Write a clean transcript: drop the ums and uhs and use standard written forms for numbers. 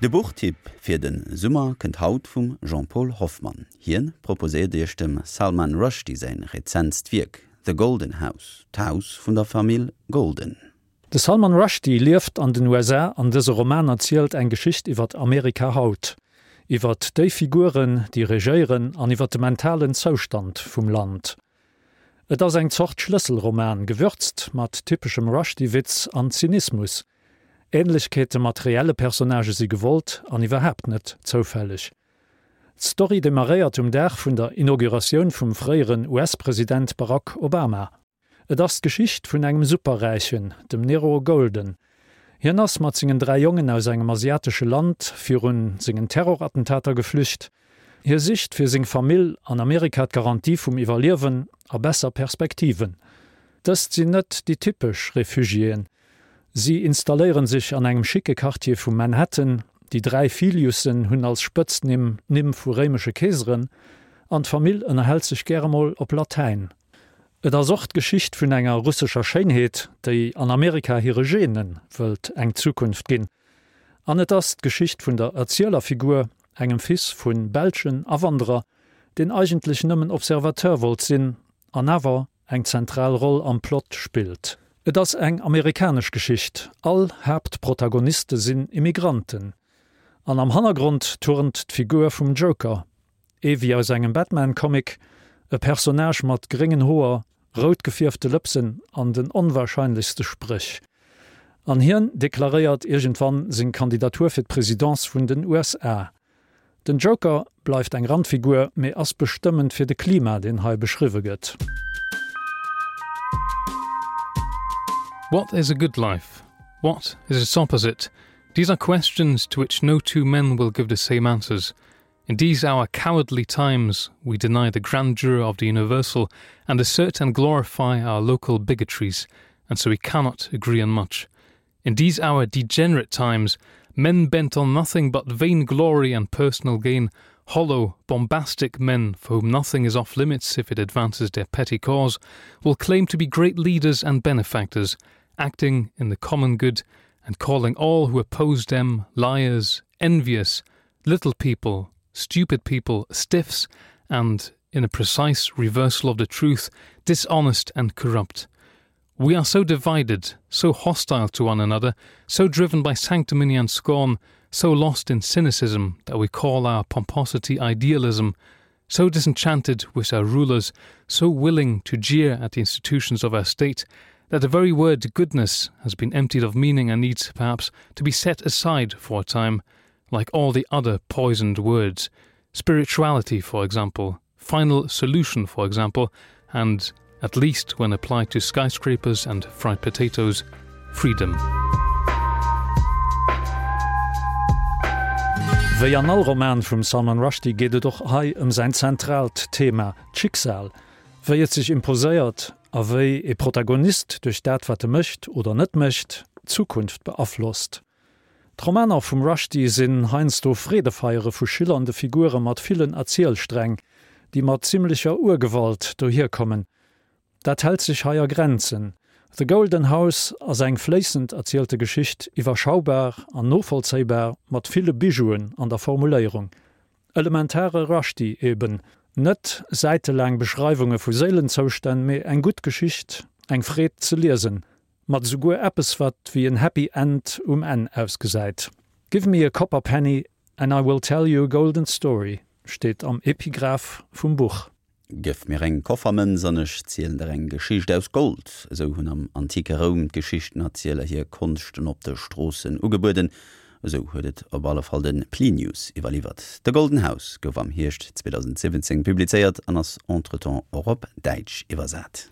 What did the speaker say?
De Buchtipp fir de Summer kënnt haut vum Jean-Paul Hoffmann. Hien proposéiert iech dem Salman Rushdie säin rezentst Wierk The Golden House, d'Haus vun der Famill Golden. De Salman Rushdie lieft an den USA an dëse Roman erzielt eng Geschicht iwwert Amerika haut, iwwert déi Figuren, déi regéieren an iwwert de mentalen Zoustand vum Land. Et ass eng Zort Schlësselroman, gewürzt mat typeschem Rushdie-Witz an Zynismus. Ähnlechkeete mat reelle Personnagë si gewollt an iwwerhaapt net zoufälleg. D'Story demarréiert um Dag vun der Inauguratioun vum fréieren US-President Barack Obama. Et ass d'Geschicht vun engem Superräichen, dem Nero Golden. Hien ass mat sengen 3 Jongen aus engem asiatesche Land virun sengen Terrorattentater geflücht. Hie sicht fir seng Famill an Amerika d'Garantie vum Iwwerliewen a besser Perspektiven. Dëst sinn net déi typesch Refugiéen. Si installéieren sech an engem schicke Quartier vu Manhattan. Déi 3 Filiussen hunn als Spëtznimm d'Nimm vu réimesche Keeseren an d'Famill ënnerhält sech gäre mol op Latäin. Et ass och d'Geschicht vun enger russescher Schéinheet, déi an Amerika hire Gene wëllt eng Zukunft ginn. An et ass d'Geschicht vun der Erzielerfigur, engem Fils vu belschen Awanderer, deen eigentlech nëmmen Observateur wollt sinn an awer eng zentral Roll am Plot spillt. Et ass eng amerikanesch Geschicht, all Haaptprotagoniste sinn Immigranten an am Hannergrond turnt d'Figur vum Joker, Ee wéi aus engem Batman-Comic, e Personnage mat gréngen Hoer, rout gefierfte Lëpsen an den onwahrscheinlechste Spréch. An hien deklaréiert iergendwann seng Kandidatur fir d'Presidence vun den USA. Den Joker bleift eng Randfigur, mee ass bestëmmend fir de Klima, deen hei beschriwwe gëtt. What is a good life? What is its opposite? These are questions to which no two men will give the same answers. In these our cowardly times, we deny the grandeur of the universal and assert and glorify our local bigotries, and so we cannot agree on much. In these our degenerate times, men bent on nothing but vainglory and personal gain, hollow, bombastic men for whom nothing is off limits if it advances their petty cause, will claim to be great leaders and benefactors, acting in the common good and calling all who oppose them liars, envious, little people, stupid people, stiffs, and, in a precise reversal of the truth, dishonest and corrupt. We are so divided, so hostile to one another, so driven by sanctimony and scorn, so lost in cynicism that we call our pomposity idealism, so disenchanted with our rulers, so willing to jeer at the institutions of our state, that the very word goodness has been emptied of meaning and needs, perhaps, to be set aside for a time, like all the other poisoned words, spirituality, for example, final solution, for example, and, at least when applied to skyscrapers and fried potatoes, freedom. Wéi an all Roman vum Salman Rushdie geet et och hei ëm säin zentraalt Thema, d'Schicksal, wéi et sech imposéiert a wéi e Protagonist duerch dat wat e mécht oder net mécht, d'Zukunft beaflosst. D'Romaner vum Rushdie sinn heiansdo Freedefeiere vu schillernde Figure mat villen Erzielsträng, déi mat zimmlecher Urgewalt dohierkommen. Dat hält sech hei a Grenzen. The Golden House ass eng fléissend erzielte Geschicht, iwwerschaubar an novollzéibar, mat ville Bijouen an der Formuléierung. Elementare Rushdie eben, net säitelaang Beschreiwunge vu Séilenzoustänn, mee eng gutt Geschicht, eng Freed ze liesen. Mat esouguer eppes wat wéi en Happy End um Enn ausgesäit. Give me a copper penny and I will tell you a golden story steet am Epigraph vum Buch. Gëff mir eng Koffermënz an ech zielen der eng Geschicht aus Gold. Esou hunn am antike Roum d'Geschichtenerzieler hir Konschten op de Stroossen ugebueden. Esou huet et op alle Fall de Plinius iwwerliwwert. The Golden House gouf am Hierscht 2017 publizéiert an ass entretemps och op Däitsch iwwersat.